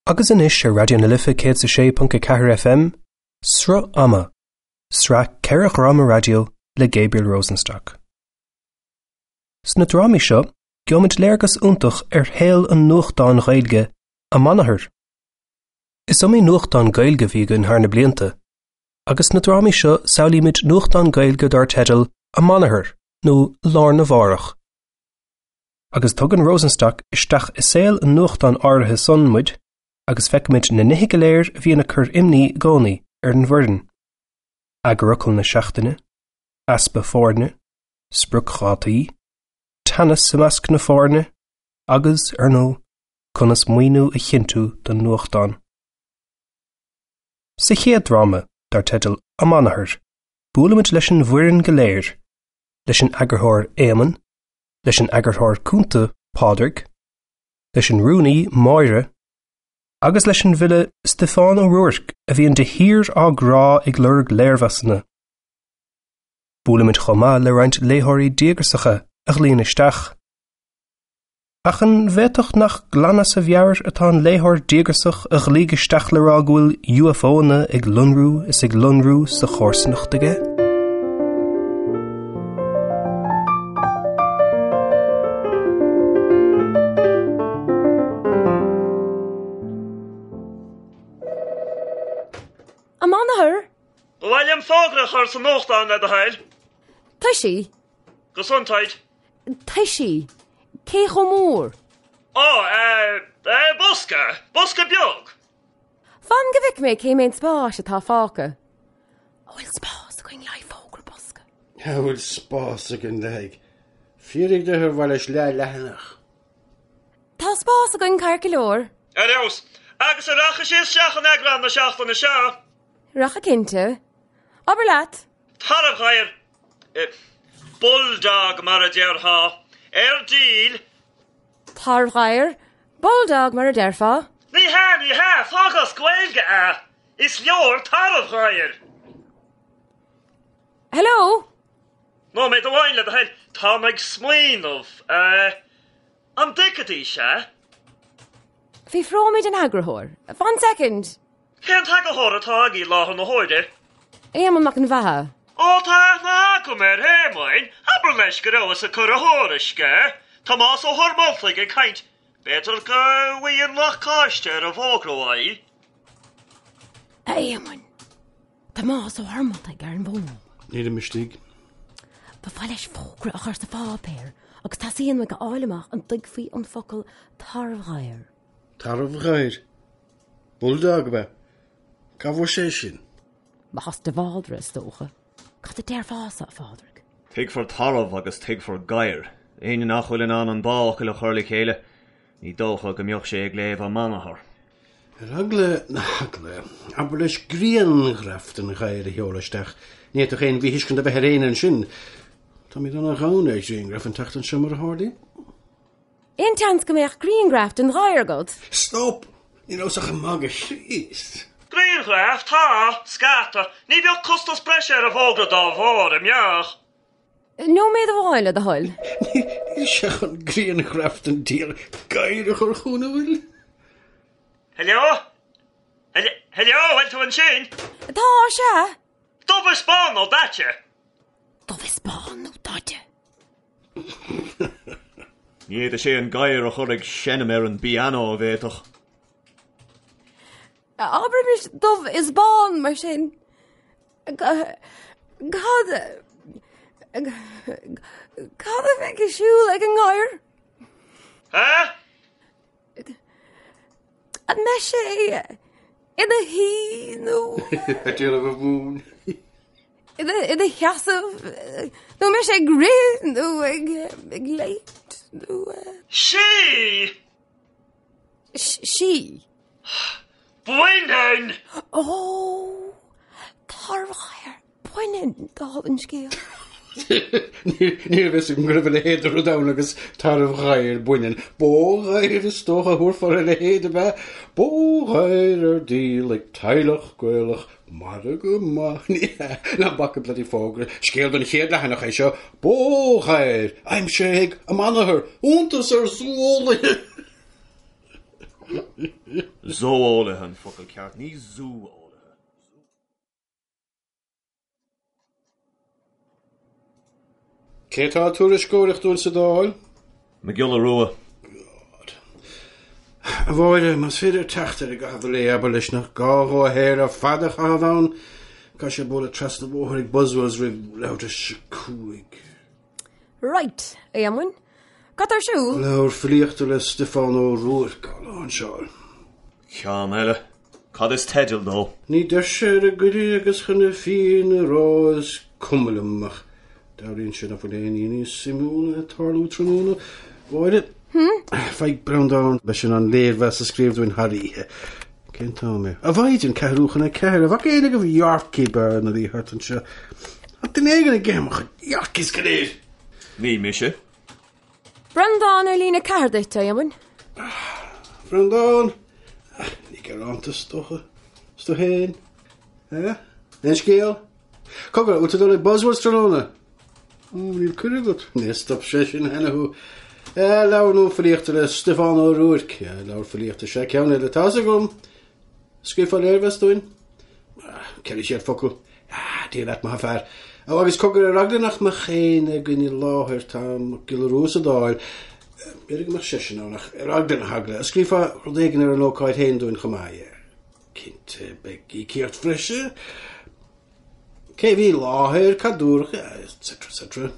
Agus anois ar Raidió na Life 106.4 FM, Sruth Ama, sraith 4 dhráma raidió le Gabriel Rosenstock. Sna drámaí seo, gheobhaimid léargas iontach ar shaol an nuachtáin Ghaeilge, Amanathar. Is iomaí nuachtán Gaeilge a bhí againn thar na blianta, agus sna drámaí seo samhlaímid nuachtán Gaeilge dar teideal Amanathar nó Lá Arna Mhárach. Agus tugann Rosenstock isteach i saol an nuachtáin áirithe san muid agus feicimid na nithe go léir a bhíonn ag cur imní i gcónaí ar an bhfoireann, eagarfhocal na seachtaine, easpa foirne, spriocdhátaí, teannas i measc na foirne agus, ar ndóigh, conas maoiniú a chinntiú don nuachtán. Sa chéad dráma, dar teideal Amanathar, buailimid leis an bhfoireann go léir, leis an eagarthóir Éamonn, leis an eagarthóir cúnta Pádraig, leis an rúnaí Máire, agus leis an bhfile Stiofán Ó Ruairc a bhíonn de shíor á gcrá ag lorg léirmheasanna. Buailimid chomh maith le roinnt léitheoirí díograsacha a ghlaonn isteach. Ach an bhféadfadh nach glan as a mheabhair atá an léitheoir díograsach a ghlaoigh isteach le rá go bhfuil UFOanna ag lonrú is ag lonrú sa chomharsanacht aige? Amanathar! Ba mhaith liom fógra a chur sa nuachtán le do thoil. Toisí! Gesundheit. Toisí, cé chomh mór? Ó, eh, eh, bosca, bosca beag. Fan go bhfeice mé cé méid spáis atá fágtha. An bhfuil spás againn le haghaidh fógra bosca? An bhfuil spás againn le haghaidh? Fiafraigh de ar mhaith leis leathleathanach. Tá spás againn ceart go leor. Ar fheabhas. Agus an rachaidh sé isteach in eagrán na seachtaine seo? Rachaidh cinnte. Abair leat. Tarbhghadhar. Bulldog mar a déarfá. Ar díol. Tarbhghadhar. Bulldog mar a déarfá. Ní hea, ní hea, fág as Gaeilge é. Is leor tarbhghadhar. Hello? Nóiméad amháin le do thoil, táim ag smaoineamh. An dtuigfidís é? Fiafróimid den eagarthóir. Fan soicind! Cén t-eagarthóir atá agaibh i láthair na huaire? Éamonn Mac an Bheatha. Ó tá aithne agam ar Éamonn, abair leis go rabhas ag cur a thuairisce. Tomás Ó hUrmoltaigh ag caint. B'fhéidir go bhfaighinn lacáiste ar an bhfógra uaidh. A Éamoinn, Tomás Ó hUrmoltaigh ar an bhfón. Nílim istigh. Ba mhaith leis fógra a chur sa pháipéar agus teastaíonn uaidh a fháil amach an dtuigfí an focal tarbhghadhar. Tarbhghadhar? Bulldog, ab ea? Cá bhfuair sé sin? Amach as de Bhaldraithe, is dócha. Cad a déarfása, a Phádraig? Tuigfear tarbh agus tuigfear gadhar. Éinne nach bhfuil in ann an dá fhocal a chur le chéile, ní dócha go mbeadh sé ag léamh Amanathar. Ar eagla na heagla, abair leis grianghraf den ghadhar a sheoladh isteach. Ní fhéadfadh aon mhíthuiscint a bheith ar éinne ansin. Táimid ana-ghann ar ghrianghraif an tseachtain seo mar a tharlaíonn. Aon tseans go mbeadh grianghraf den ghadhar agat? Stop! Ní rabhas ach ag magadh, a Chríost! Grianghraf? Tá, scata. Ní bheadh costas breise ar an bhfógra dá bharr, an mbeadh? Nóiméad amháin, le do thoil. Níl sé chun grianghraf den diabhal gadhar a chur chugainn, an bhfuil? Hello? Hello, bhfuil tú ansin? Tá, sea. Dubh is bán nó daite? Dubh is bán nó daite? Ní fhéadfadh sé an gadhar a chur ag seinm ar an bpianó, an bhféadfadh? Abraimis dubh is bán mar sin. Cad Cad a bheidh ar siúl ag an ngadhar? Há? An mbeidh sé ina shuí nó Ag déanamh a mhúin. ina sheasamh nó an mbeidh sé ag rith nó ag ag léimt nó Sí! Sí. Baineann! Ó! Tarbhghadhar baineann, dála an scéil. Ní raibh fhios agam go raibh a leithéid de rud ann agus tarbhghadhar baineann. Bóghadhar is dócha a thabharfá ar a leithéid, ab ea? Bóghadhar ar díol ag teaghlach Gaelach, margadh maith. Ní hea, ná bac an bloody fógra. Scéal don chéad leathanach é seo. Bóghadhar aimsithe ag Amanathar, iontas ar zú-eolaithe! Zó-eolaithe an focal ceart, ní zú-eolaithe. Cé atá ag tuairisceoireacht dúinn sa Dáil? Mac Giolla Rua. God. A Mháire, más féidir teacht air i gcaitheamh an lae, abair leis nach gá dhó a shaol ar fad a chaitheamh ann. Caithfidh sé bualadh trasna an bhóthair ag Buswells roimh leathuair tar éis a 5. Right, a Éamoinn. Cad tá ar siúl? Leabhar filíochta le Stiofán Ó Ruairc á láinseáil. Ceann eile. Cad is teideal dó? Ní deir sé ar an gcuireadh agus chun na fírinne a rá is cuma liom ach dealraíonn sé nach bhfuil aon ní níos suimiúla ag tarlú tráthnóna. Mháire, faigh Breandán, beidh sé in ann léirmheas a scríobh dúinn thar oíche. Cén t-am é? A mhaighdean, 3:45. An bhfaca éinne agaibh Yorkie Bear nuair a bhí thart anseo? Tá duine éigin ag ithe mo chuid Yorkies go léir! Ní mise. Breandán ar líne 4 duit, a Éamoinn. Breandán! Ní gearánta is dócha. Is tú féin? Eh? Aon scéal? Cogar, bhfuil tú ag dul ag Buswells tráthnóna? Ó, níl cuireadh agat. Níor stop sé sin cheana thú. Eh, leabhar nua filíochta le Stiofán Ó Ruairc. Eh, leabhar filíochta sea ceann eile, tá's agam. Scríobhfá léirmheas dúinn? 400 focal. Ah, Dia leat, maith an fear. Ó, agus cogar ar eagla nach mbeadh éinne againn i láthair, tá Mac Giolla Rua sa Dáil. B'fhéidir go mbeadh seisean ann, ach ar eagla na heagla. Scríobhfá rud éigin ar an ócáid féin dúinn chomh maith, yeah. Cinnte, beidh íocaíocht bhreise. Cé a bhí i láthair, cad dúradh, etc. etc.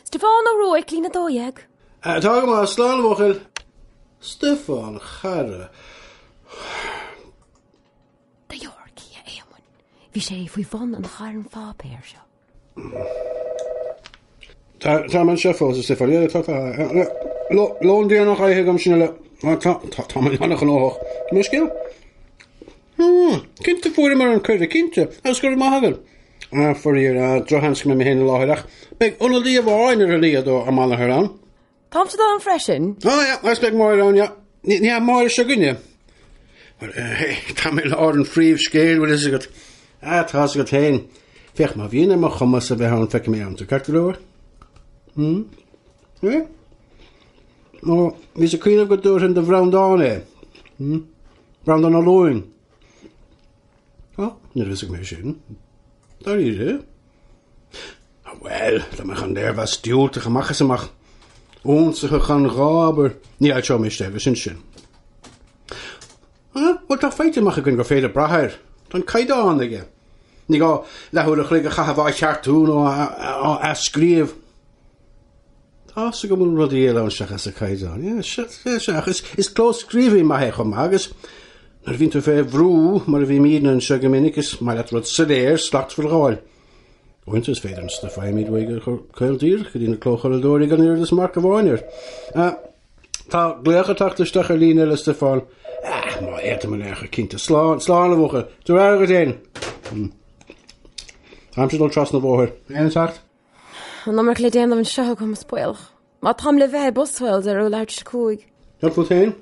Stiofán Ó Ruairc, líne 12. Tá go maith, slán a bhuachaill. Stiofán, a chara. Do Yorkie, a Éamoinn. Bhí sé faoi bhun an chairn pháipéir seo. Tá tá mé anseo fós, a Stiofáin. Yeah, tá tá. Lón déanach ithe agam sin uile. Tá tá tá mé an-ghnóthach. Mo scéal? Hmm, cinnte fuaireamar an cuireadh, cinnte, agus go raibh maith agat. Ah, faraor, ah, drochsheans go mbeidh mé féin i láthair ach beidh ionadaí amháin ar a laghad ó ár mBaile ann. Táimse ann freisin. Ah, yeah, agus beidh Máire ann, yeah. Ní ní hea Máire seo againne. Well, eh, tá mé i lár an phríomhscéil, bhfuil fhios agat. Ah, tá fhios agat féin. Féach, má bhíonn ar mo chumas a bheith ann, feicfidh mé ann tú, ceart go leor? Hmm? Eh? Ó, bhíos ag cuimhneamh go dtabharfainn do Bhreandán é. Hmm? Breandán Ó Lúing. Ó, ní raibh fhios agam é sin. Dáiríre? Ah, bhuel, dá mbeadh an léirmheas diúltach amach is amach. Ionsaithe gan ghá, abair. Ní fhoilseoidh mé é agus sin sin. Ah, bhuel, tá faighte amach againn gur féidir brath air. Tá an caighdeán aige. Ní gá leathuair a chloig a chaitheamh á cheartú nó á athscríobh. Tá fhios agam go bhfuil rudaí eile ann seachas an caighdeán. Yeah, sea, sea, sea, ach is, is clóscríobhaí maith é chomh maith agus nuair a bhíonn tú fé bhrú, mar a bhímidne anseo go minic, is maith leat rud soiléir, slachtmhar a fháil. Uaireanta is féidir an stuif a fhaighimid uaidh a chur caol díreach go dtí na clóchuradóirí gan oiread is marc amháin air. Ah, tá glaoch ag teacht isteach ar líne eile, Stiofán. Ah, má fhéadaim in aon chor, cinnte. Slán, slán a bhuachaill. Tabhair aire dhuit féin. Hmm. Táimse ag dul trasna an bhóthair. Aon teacht? An iomarca le déanamh anseo agam, is baolach. Má táim le bheith i Buswells ar leathuair tar éis a 5. Cad fút féin?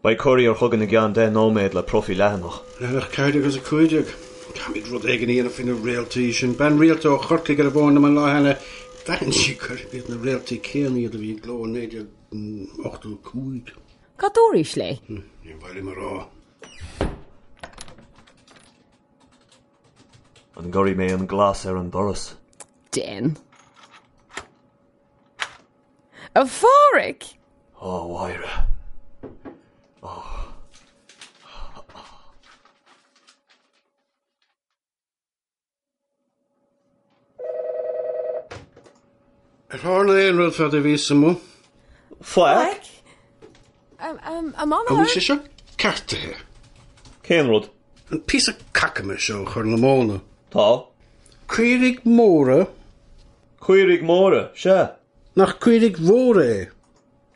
Beidh courier chugainn i gceann 10 nóiméad le profaí leathanach. Leathanach 14 agus 15. Caithfimid rud éigin a dhéanamh faoi na réaltaí sin. Bean rialta ó Chorcaigh ar an bhfón liom an lá cheana. D'aithin sí gurb iad na réaltaí céanna iad a bhí i gcló in 1985. Cad dúraís léi? Níor mhaith liom a rá. An gcuirfidh mé an glas ar an doras? Déan. A Phádraig! Ó, a Mháire. Ó. Ar tharla aon rud fad a bhíos amuigh? Faic. An An bhfuil sé seo ceartaithe? Cén rud? An píosa cacama seo ó Chorr na Móna. Tá. Caoirigh móra? Caoirigh móra, sea. Nach caoirigh mhóra é?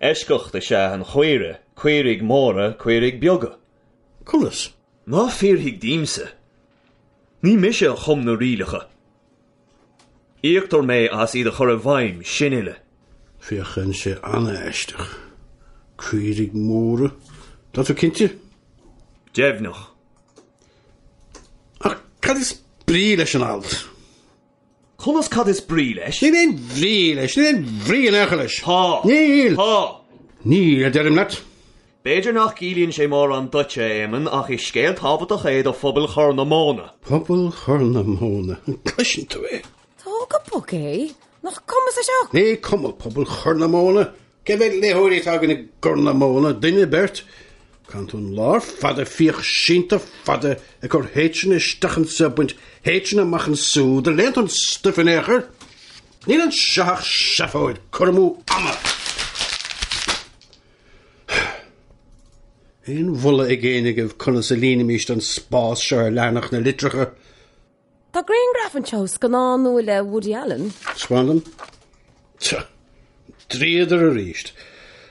Eisceacht is ea an chaoire, caoirigh mhóra, caoirigh beaga. Conas? Ná fiafraigh díomsa. Ní mise a chum na rialacha. Íoctar mé as iad a chur i bhfeidhm, sin uile. Féachann sé an-aisteach. Caoirigh mhóra. Tá tú cinnte? Deimhneach. Ach cad is brí leis an alt? Conas cad is brí leis? Níl aon bhrí leis, níl aon bhrí in aon chor leis. Tá. Níl! Tá. Níl, a deirim leat. B'fhéidir nach gciallaíonn sé mórán duitse, a Éamoinn, ach is scéal tábhachtach é do phobal Chorr na Móna. Pobal Chorr na Móna. An gcloiseann tú é? Tóg go bog é! Nach cuma sa sioc! Ní cuma pobal Chorr na Móna! Cé mhéad léitheoirí atá againn i gCorr na Móna? Duine, beirt? Caitheann tú an lá ar fad ag fiach sínte fada ag cur H-anna isteach anseo, baint H-anna amach ansúd, an léann tú an stuif in aon chor? Níl anseo ach seafóid, cur amú ama! Aon mholadh ag éinne agaibh conas a líonfaimis an spás seo ar leathanach na litreacha? Tá grianghraf anseo ó scannán nua le Woody Allen. Taispeáin dom. Tch! Dríodar arís.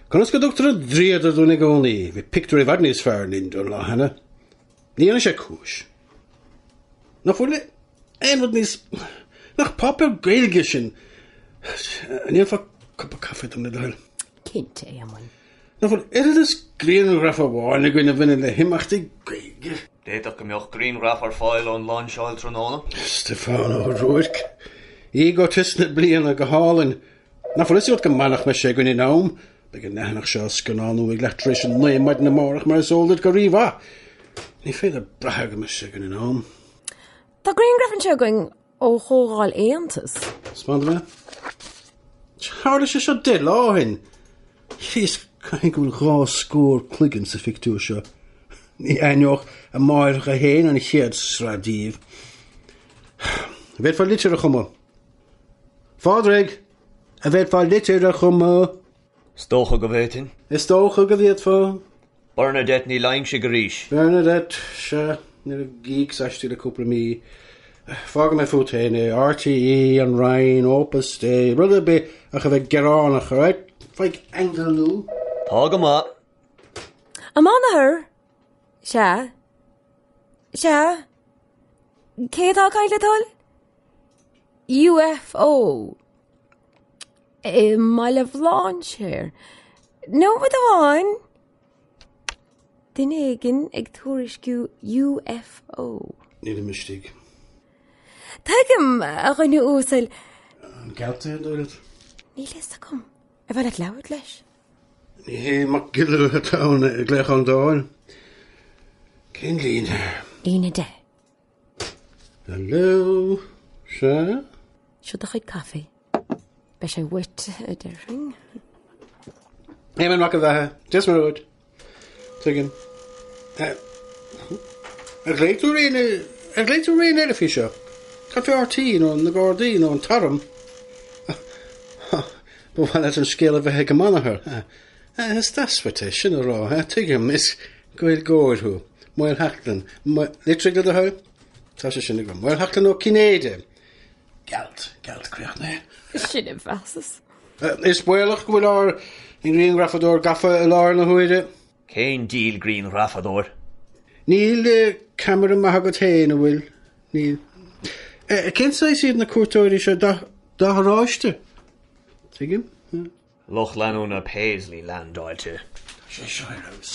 Conas go dtugtar an dríodar dúinn i gcónaí? Bhí pictiúr i bhfad níos fearr linn don lá cheana. Ní dhéanann sé cúis. Nach bhfuil aon rud níos... Nach páipéar Gaeilge sin? An ndéanfá cupa caife dom le do thoil? Cinnte, a Éamoinn. Nach bhfuil oiread is grianghraf amháin againn a bhaineann le himeachtaí Gaeilge? D'fhéadfadh go mbeadh grianghraf ar fáil ón lainseáil tráthnóna. Stiofán Ó Ruairc. Égotis na bliana, go hálainn. Nach bhfuil fhios agat go maith nach mbeidh sé againn in am? Beidh an leathanach seo á scannánú ag leath tar éis a 9 maidin amárach mar is eol duit go rímhaith. Ní féidir brath go mbeidh sé againn in am. Tá grianghraf anseo againn ó chomhdháil Aontas. Taispeáin dom é. Tharla sé seo 10 lá ó shin. Chríost, caithfidh go bhfuil dhá scór cloigeann sa phictiúr seo. Ní aithneodh a máithreacha féin an chéad sraith díobh. An bhféadfá litir a chumadh? Phádraig, an bhféadfá litir a chumadh? Is dócha go bhféadfainn. Is dócha go bhféadfá. Bernadette Ní Loingsigh arís. Bernadette, sea, ní raibh gíocs aisti le cúpla mí. Fágfaidh mé fút féin é, RTÉ, an Roinn, Opus Dei, rud ar bith ach a bheith gearánach, alright? Faigh angle nua. Tá go maith. An Mánathair? Sea. Sea. Cé atá ag caint le do thoil? UFO. I mBaile Bhlainséir. Nóiméad amháin. Duine éigin ag tuairisciú UFO. Nílim istigh. Tuigim, a dhuine uasail. An gealt é, an dóigh leat? Níl fhios agam. Ar mhaith leat labhairt leis? Ní hé Mac Giolla atá ann ag glaoch ón Dáil. Cén líne? Líne 10. Hello? Sea? Seo do chuid caife. Beidh sé uait, a déarfainn. Éamonn Mac an Bheatha, Dia is Muire dhuit. Tuigim. Ar ghlaoigh tú ar éinne, ar ghlaoigh tú ar éinne eile faoi seo? Cad fé RTÉ nó na Gardaí nó an tArm? Ba mhaith leat an scéal a bheith ag an mbanathair. Is deas uait é sin a rá, tuigim, is Gaeilgeoir thú. Maolsheachlainn. Litrigh le do thoil? Tá sé sin agam. Maolsheachlainn Ó Cinnéide. Gealt, gealt críochnaithe. Sin a mheasas. Is baolach go bhfuil ár ngrianghrafadóir gafa i láthair na huaire. Cén diabhal grianghrafadóir? Níl ceamara maith agat féin, an bhfuil? Níl. Cén saghas iad na cuairteoirí seo? Dath oráiste? Tuigim. Lucht leanúna Paisley leaindeáilte. Tá sé seo ar fheabhas.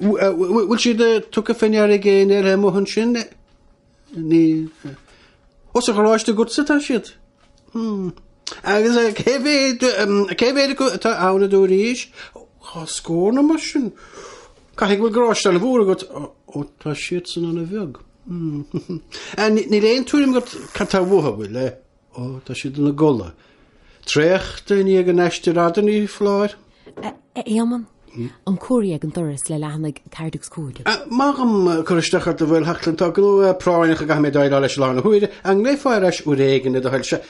Bhfuil siad tugtha fé ndeara ag éinne eile amuigh ansin? Níl. Ó, sa gharáiste agatsa atá siad? Hmm. Agus cé mhéad, cé mhéad acu atá ann a dúraís? Dhá scór nó mar sin. Caithfidh go bhfuil garáiste an-mhór agat. Ó, tá siadsan an-bheag. Hmm. Níl aon tuairim agat cad tá uathu, bhfuil? Ó, tá siad ina gcodladh. Traochta i ndiaidh an aistir fhada, ní foláir. A Éamoinn, an cóirí ag an doras le leathanaigh 4 agus 5. Maith dhom cur isteach ort a Mhaolsheachlainn, tá gnó práinneach a gcaithfidh mé déileáil leis i láthair na huaire. An nglaofá ar ais uair éigin le do thoil? Sea,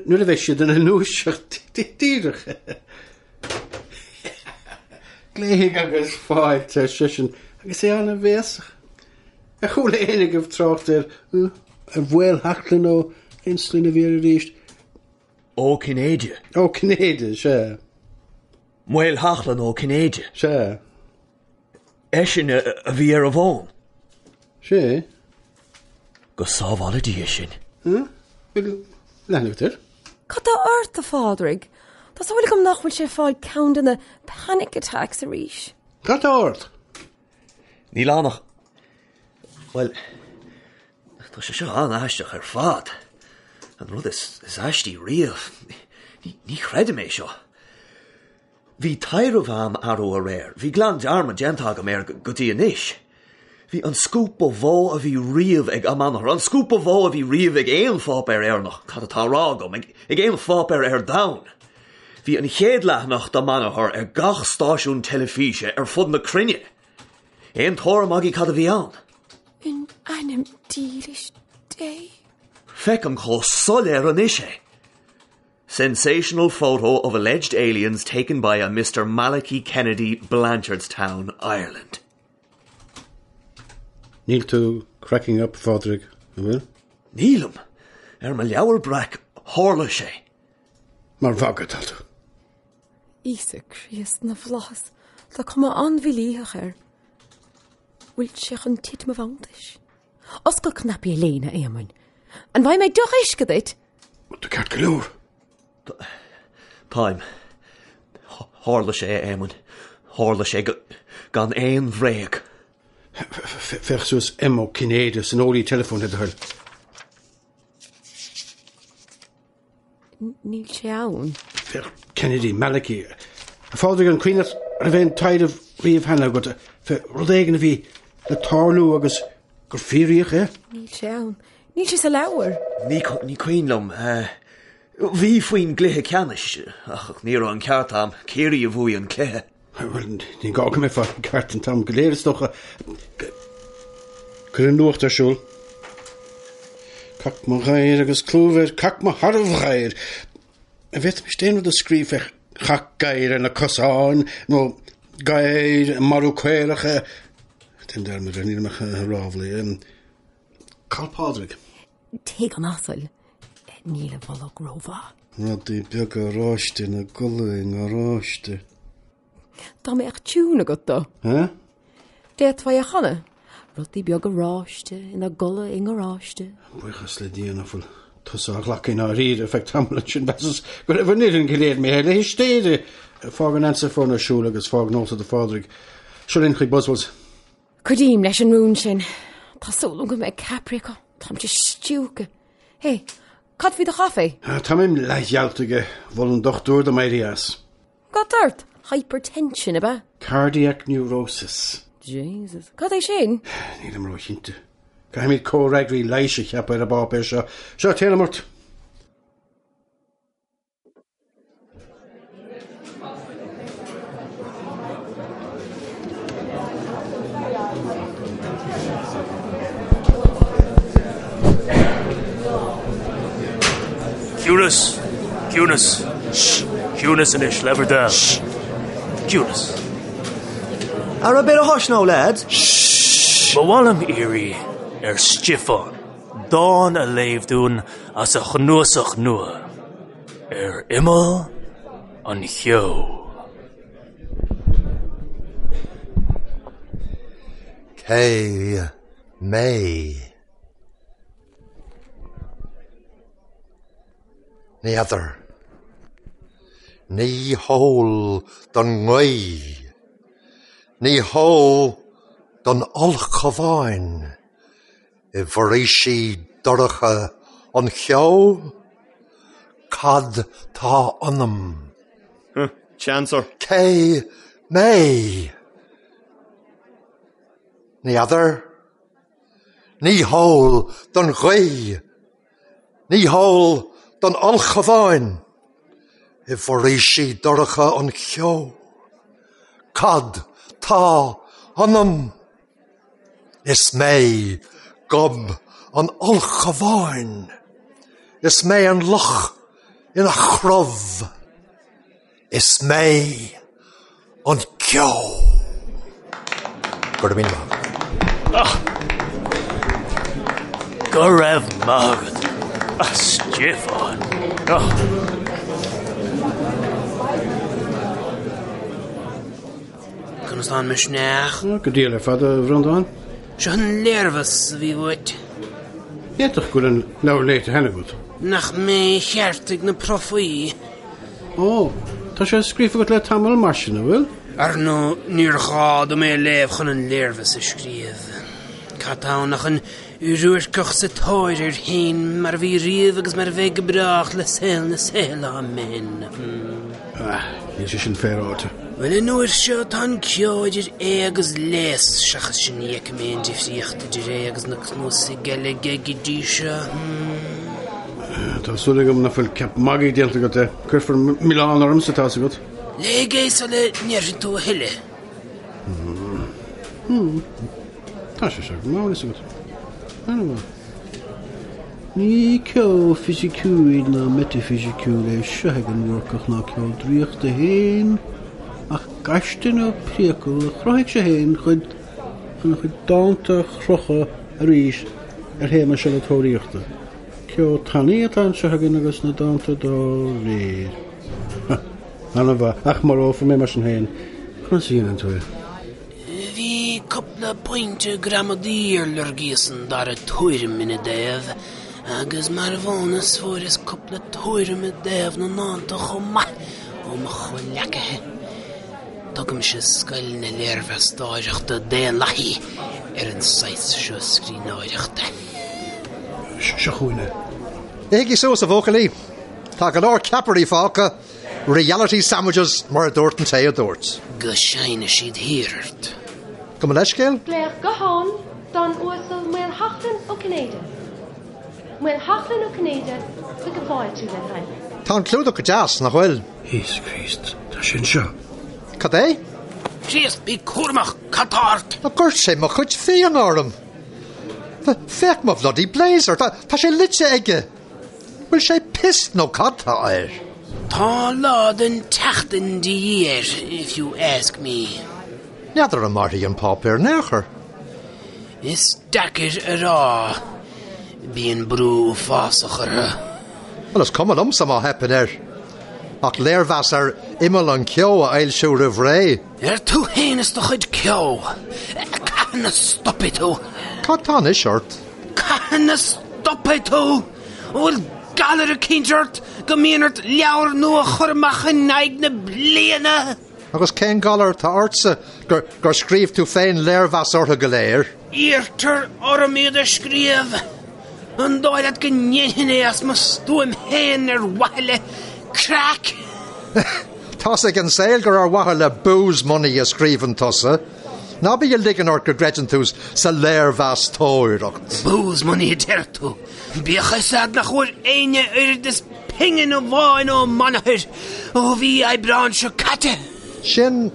nuair a bheidh siad ina ndúiseacht díreach. Glaofaidh agus fáilte, ar seisean, agus é an-bhéasach. Ar chuala éinne agaibh trácht ar, ar Mhaolsheachlainn ó cén sloinne a bhí air arís? Ó Cinnéide. Ó Cinnéide, sea. Maolsheachlainn Ó Cinnéide. Sea. Eisean a bhí ar an bhfón. Sea. Go sábhála Dia sinn. Bhfuil leathanach agat air? Cad tá ort, a Phádraig? Tá súil agam nach bhfuil sé ag fáil ceann de na panic attacks arís. Cad tá ort? Níl ann ach, bhuel, tá sé seo an-aisteach ar fad. An rud is, is aistí riamh. Ní, ní chreidim é seo. Bhí taidhreamh a'm arú aréir, bhí glan dearmad déanta agam air go dtí anois. Bhí an scúp ba mhó a bhí riamh ag Amanathar, an scúp ba mhó a bhí riamh ag aon pháipéar Éireannach, cad atá á rá agam, ag aon pháipéar ar domhan. Bhí an chéad leathanach d'Amanathar ar gach stáisiún teilifíse ar fud na cruinne. Aon tuairim agaibh cad a bhí ann? In ainm dílis Dé. Feicim chomh soiléir anois é. Sensational photo of alleged aliens taken by a Mr Malachy Kennedy, Blanchardstown, Ireland. Níl tú cracking up, a Phádraig, an bhfuil? Nílim! Ar mo leabhar breac, tharla sé. Mar mhagadh atá tú. Íosa Críost na bhFlaitheas, tá cuma an-mhílítheach air. Bhfuil sé chun titim i bhfanntais? Oscail cnaipí a léine, a Éamoinn. An bhfaighidh mé deoch uisce duit? Tú ceart go leor. Táim. Tharla sé, a Éamoinn. Tharla sé gan aon bhréag. Féach suas M. Ó Cinnéide san eolaí teileafóin, le do thoil. Níl sé ann. Féach Kennedy, Malachy. A Phádraig, an cuimhin leat an raibh aon taidhreamh riamh cheana agat fé rud éigin a bhí le tarlú agus gur fíoraíodh é? Níl sé ann. Níl sé sa leabhar. Ní ní cuimhin liom. Bhí faoin gcluiche ceannais, ach ní raibh an ceart a'm. Ciarraí a bhuaigh an cluiche. Bhuel, ní gá go mbeifeá ceart an t-am go léir, is dócha. Cuir an nuacht ar siúl. Cac mo ghadhair agus clúmh air, cac mo shearbhghadhair. An bhféadfaimis aon rud a scríobh fé chac gadhair ar na cosáin, nó gadhair ag marú caorach? Déan dearmad air, nílim ach ag ráflaí. Cá bhfuil Pádraig? Tigh an asail. Níl a bholg rómhaith. Rudaí beaga oráiste ina gcodladh i ngaráiste. Dá mbeadh tiún agat dó. Hä? D'fhéadfá é a chanadh. Rudaí beaga oráiste ina gcodladh i ngaráiste. Buíochas le Dia nach bhfuil tusa á ghlacadh i ndáiríre ar feadh tamaill ansin mheasas go raibh an fhoireann go léir imithe le histéire. Fág an answerphone ar siúl agus fág nóta do Phádraig. Seo linn chuig Buswells. Cuidím leis an rún sin. Tá súil agam go mbeidh ceapairí acu. Táimse stiúgtha. Hé, cad faoi do chaife? Táim leathgheallta aige. Mhol an dochtúir dom éirí as. Cad tá ort? Hypertension, ab ea? Cardiac neurosis. Jesus. Cad é sin? Nílim róchinnte. Caithfimid comhfhreagraí leighis a cheapadh ar an bpáipéar seo. Seo, téanam ort! Ciúnas! Ciúnas! Shh! Ciúnas anois, le bhur dtoil. Shh! Ciúnas. Ara bit of hush now, lads. Shh! Ba mhaith liom iarraidh ar Stiofán dán a léamh dúinn as a chnuasach nua, Ar Imeall an Cheo. Cé mé? Ní fheadar. Ní heol don ngaoth. Ní heol don ulchabhán. I bhforaoisí dorcha an cheo? Cad tá ionam? Chancer. Cé mé? Ní fheadar. Ní heol don ghaoth. Ní heol don ulchabhán. I bhforaoisí dorcha an cheo? Cad tá ionam? Is mé gob an ulchabháin. Is mé an luch ina chrobh. Is mé an ceo. Go raibh míle maith agat. Go raibh maith agat, a Stiofáin. Conas tá an misneach? Go diail ar fad, a Bhreandáin. Seo an léirmheas a bhí uait. D'fhéadfadh go bhfuil an leabhar léite cheana agat. Nach mé a cheartaigh na profaí? Ó, tá sé scríofa agat le tamall mar sin, an bhfuil? Ar ndóigh, níor ghá dom é a léamh chun an léirmheas a scríobh. Cad tá ann ach an Ruairceach sa tóir air féin mar a bhí riamh agus mar a bheidh go brách le saol na saol, amen. Ah, níl sé sin féaráilte. Bhuel, an uair seo tá an ceo idir é agus léas, seachas sin ní fheicim aon difríocht idir é agus na cnuasaigh eile aige go dtí seo. Tá súil agam nach bhfuil ceap magaidh déanta agat de. Cuirfear milleán ormsa, tá's agat. Léigh é sula ndéarfaidh tú a thuilleadh. Tá sé seo go maith, agat. An-mhaith. Ní ceo fisiciúil ná meitifisiciúil é seo ag an Bhúrcach ná ceo draíochta féin, ach gaiste nó priacal a chruthaigh sé féin chun a chuid dánta a chrochadh arís ar théama seo na tóraíochta. Ceo tanaí atá anseo againn agus na dánta dá réir. An-mhaith, ach marófar mé mar sin féin. Conas a dhéanann tú é? Bhí cúpla pointe gramadaí ar lorgaíos an dara tuairim ina dtaobh, agus mar bhónas fuaireas cúpla tuairim i dtaobh na ndánta chomh maith ó mo chomhleacaithe. Tugaimse scoil na léirmheastóireachta daonlathaí ar an saghas seo scríbhneoireachta. Seo chugainn é. Ithigí suas, a bhuachaillí. Tá go leor ceapairí fágtha. Reality sandwiches mar a dúirt an té a dúirt. Go seinnfidh siad thiar ort. Gabh mo leithscéal? Glaoch gutháin don Uasal Maolsheachlainn Ó Cinnéide. Maolsheachlainn Ó Cinnéide chuig ag fáiltiú le thoil. Tá an clúdach go deas, nach bhfuil? Íosa Críost, tá sé anseo. Cad é? Críost, bí cúramach, cad tá ort? Dhoirt sé mo chuid fíona orm. Féach mo bhloody blazer, tá sé loite aige. Bhfuil sé pissed nó cad tá air? Tá lá den tseachtain de dhíth air, if you ask me. N'fheadar an mairfidh an páipéar in aon chor. Is deacair a rá. Bíonn brú uafásach orthu. Bhuel, is cuma liomsa má theipeann air. Ach léirmheas ar Imeall an Cheo a fhoilsiú roimh ré. Ar tú féin is do chuid ceo. Cathain a stopfaidh tú? Cad tá anois ort? Cathain a stopfaidh tú? An bhfuil galar eicínt ort go mbíonn ort leabhar nua a chur amach in aghaidh na bliana? Agus cén galar atá ortsa gur gur scríobh tú féin léirmheas orthu go léir? Iarrtar orm iad a scríobh. An dóigh leat go ndéanfainn é as mo stuaim féin ar mhaithe le craic? Tá's ag an saol gur ar mhaithe le booze money a scríobhann tusa. Ná bí ag ligean ort go gcreideann tú sa léirmheastóireacht. Booze money a deir tú. Bíodh a fhios a'd nach bhfuair éinne oiread is pingin amháin ó m'athair ó mhí Aibreáin seo caite. Sin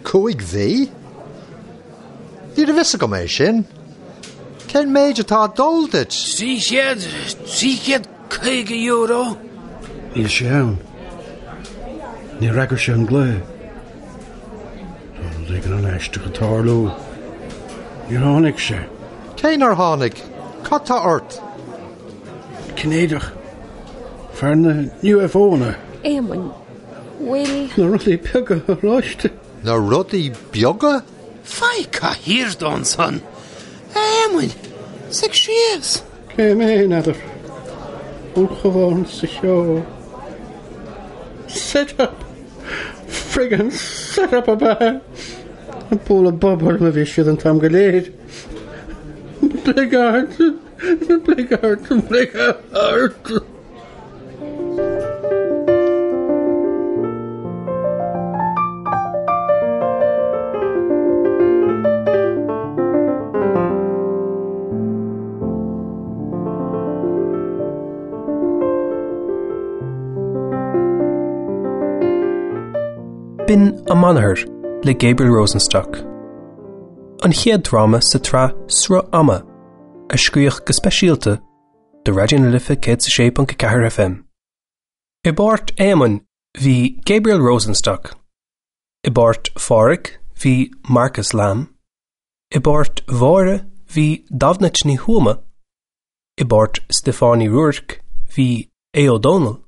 5 mhí? Ní raibh fhios agam é sin. Cén méid atá ag dul duit? 300, €350. Níl sé ann. Níor fhreagair sé an glao. Tá rud éigin an-aisteach ag tarlú. Níor tháinig sé. Cé nár tháinig? Cad tá ort? Cinnéideach. Fear na UFO-anna. Éamoinn, bhfuil. Na rudaí beaga oráiste. Na rudaí beaga? Faigh cathaoir dó ansan, a Éamoinn, suigh síos. Cé mé, n'fheadar. Ulchabhán sa cheo. Set up! Friggin' set up ab ea! Ag bualadh bob orm a bhí siad an t-am go léir. Bligeard! Bligeard! Bligeard! B'in Amanathar le Gabriel Rosenstock. An chéad dráma sa tsraith Sruth Ama, a scríodh go speisialta do Raidió na Life 106.4 FM. I bpáirt Éamoinn bhí Gabriel Rosenstock. I bpáirt Phádhraic bhí Marcus Lamb. I bpáirt Mháire bhí Damhnait Ní Thuama. I bpáirt Stiofáin Uí Ruairc bhí Aodh Ó Dónaill.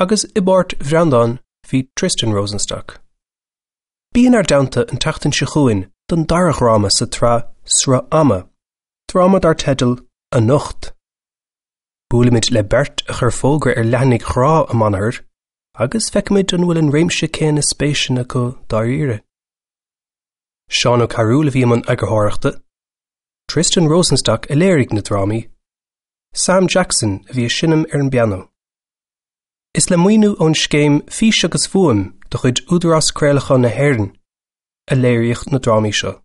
Agus i bpáirt Bhreandáin bhí Tristan Rosenstock. Bí inár dteannta an tseachtain seo chugainn don dara dhráma sa tsraith Sruth Ama, dráma dar teideal Anocht. Buailfimid le beirt a chuir fógra ar leathanaigh ghrá Amanathar agus feicfimid an bhfuil an réimse céanna spéiseanna acu dáiríre. Seán Ó Cearúil a bhí i mbun eagarthóireachta. Tristan Rosenstock a léirigh na drámaí, Sam Jackson a bhí ag seinm ar an bpianó. Is le maoiniú ón scéim Fís agus Fuaim de chuid Údarás Craolacháin na hÉireann a léiríodh na drámaí seo.